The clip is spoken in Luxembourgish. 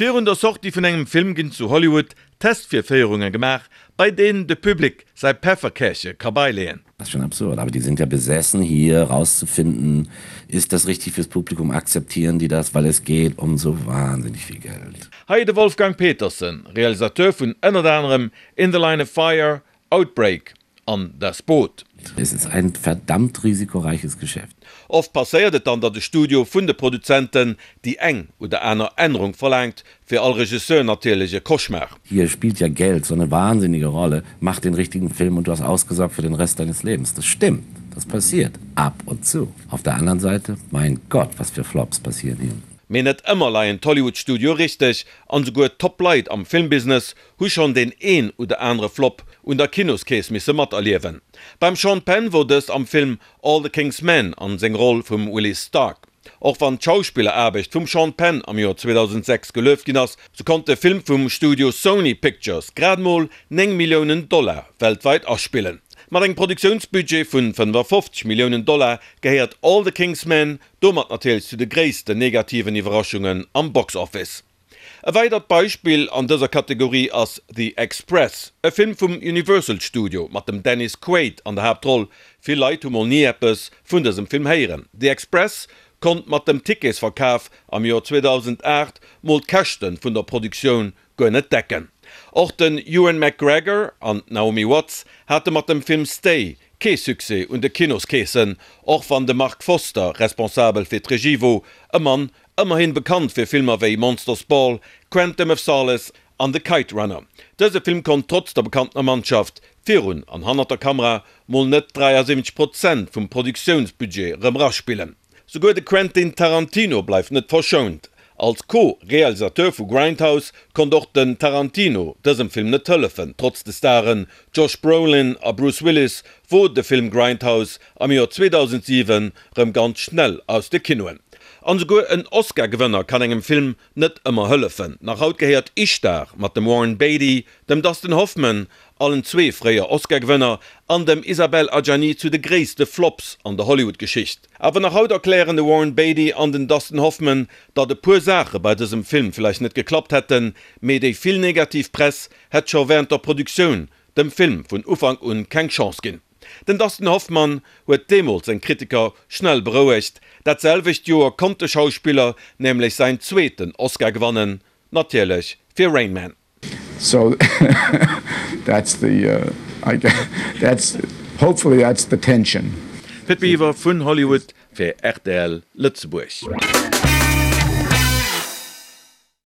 Virun der Sortie vun engem Film ginn zu Hollywood Testvirféierunge gemaach, bei deenen de Public säi Pefferkärche ka beileeën. Das ist schon absurd, aber die sind ja besessen hier rauszufinden, ist das richtig fürs Publikum, akzeptieren die das, weil es geht um so wahnsinnig viel Geld. Hei de Wolfgang Petersen, Realisateur vun ënnert anerem In the Line of Fire, Outbreak an Das Boot. Es ist ein verdammt risikoreiches Geschäft. Oft passéiert et dann, datt e Studio vun de Produzenten déi eng oder aner Ännerung verlaangt, fir all Regisseur natierlech e Cauchemar. Hier spielt ja Geld so eine wahnsinnige Rolle, mach den richtigen Film und du hast ausgesorgt für den Rest deines Lebens. Das stimmt, das passiert ab und zu. Auf der anderen Seite, mein Gott, was für Flops passieren hier. Mee net ëmmer leien d'Hollywood-Studioe richteg, an esouguer d'Top-Leit am Filmbusiness hu schonn deen een oder anere Flop un der Kinoskeess misse materliewen. Beim Sean Penn wor dëst am Film All the King's Men an seng Roll vum Willie Stark. Och wann d'Schauspilleraarbecht vum Sean Penn am Joer 2006 gelueft ginn ass, sou konnt de Film vum Studio Sony Pictures grad mol 9 Milliounen Dollar weltweit aspillen. Mat engem Produktiounsbudget vun 55 Milliounen Dollar gehéiert All the King's Men domat natierlech zu de gréissten negativen Iwwerraschungen am Box Office. E weidert Beispill an dëser Kategorie ass The Express, e Film vum Universal Studio mat dem Dennis Quaid an der Haaptroll. Vill Leit hu mol ni eppes vun dësem Film héieren. The Express konnt mat dem Ticketsverkaf am Joer 2008 mol d'Käschte vun der Produktioun guer net decken. Och den Ewan McGregor an d'Naomi Watts hate mat dem Film Stay kee Succès un de Kinoskeesen, och wann de Marc Forster responsabel fir d'Regie wor, e Mann Ëmmerhin bekannt fir Filmer wéi Monsters Ball, Quantum of Solace an The Kite Runner. Dëse Film konnt trotz der bekanntener Mannschaft virun an hannert der Kamera mol net 73 Prozent vum Produktiounsbudget rëm raspillen. Souguer de Quentin Tarantino bleift net verschount. Als Co-Realisateur vu Grindhouse konnt och den Tarantino dësem Film net hëllefen. Trotz de Staren Josh Brolin a Bruce Willis wor de Film Grindhouse am Joer 2007 rëm ganz schnell aus de Kinoen. An esouguer en Oscar-Gewënner kann engem Film net ëmmer hëllefen. Nach haut gehéiert Ishtar mat dem Warren Beatty, dem Dustin Hoffman, allen zwee fréier Oscar-Gewënner, an dem Isabelle Adjani zu de gréisste Flops an der Hollywood-Geschicht. Awer nach haut erklären de Warren Beatty an den Dustin Hoffman, datt e puer Saache bei dësem Film vläicht net geklappt hätten, mee déi vill negativ Press hätt scho wärend der Produktioun dem Film vun Ufank un keng Chance ginn. Den Dustin Hoffman huet deemools seng Kritiker schnell berouegt. Dat selwecht Joer konnt de Schauspiller nämlech säin zweeten Oscar gewannen, natierlech fir Rain Man. So that's the, I guess, that's, hopefully that's the tension. Pit Biwer vun Hollywood fir rtl Lëtzebuerg.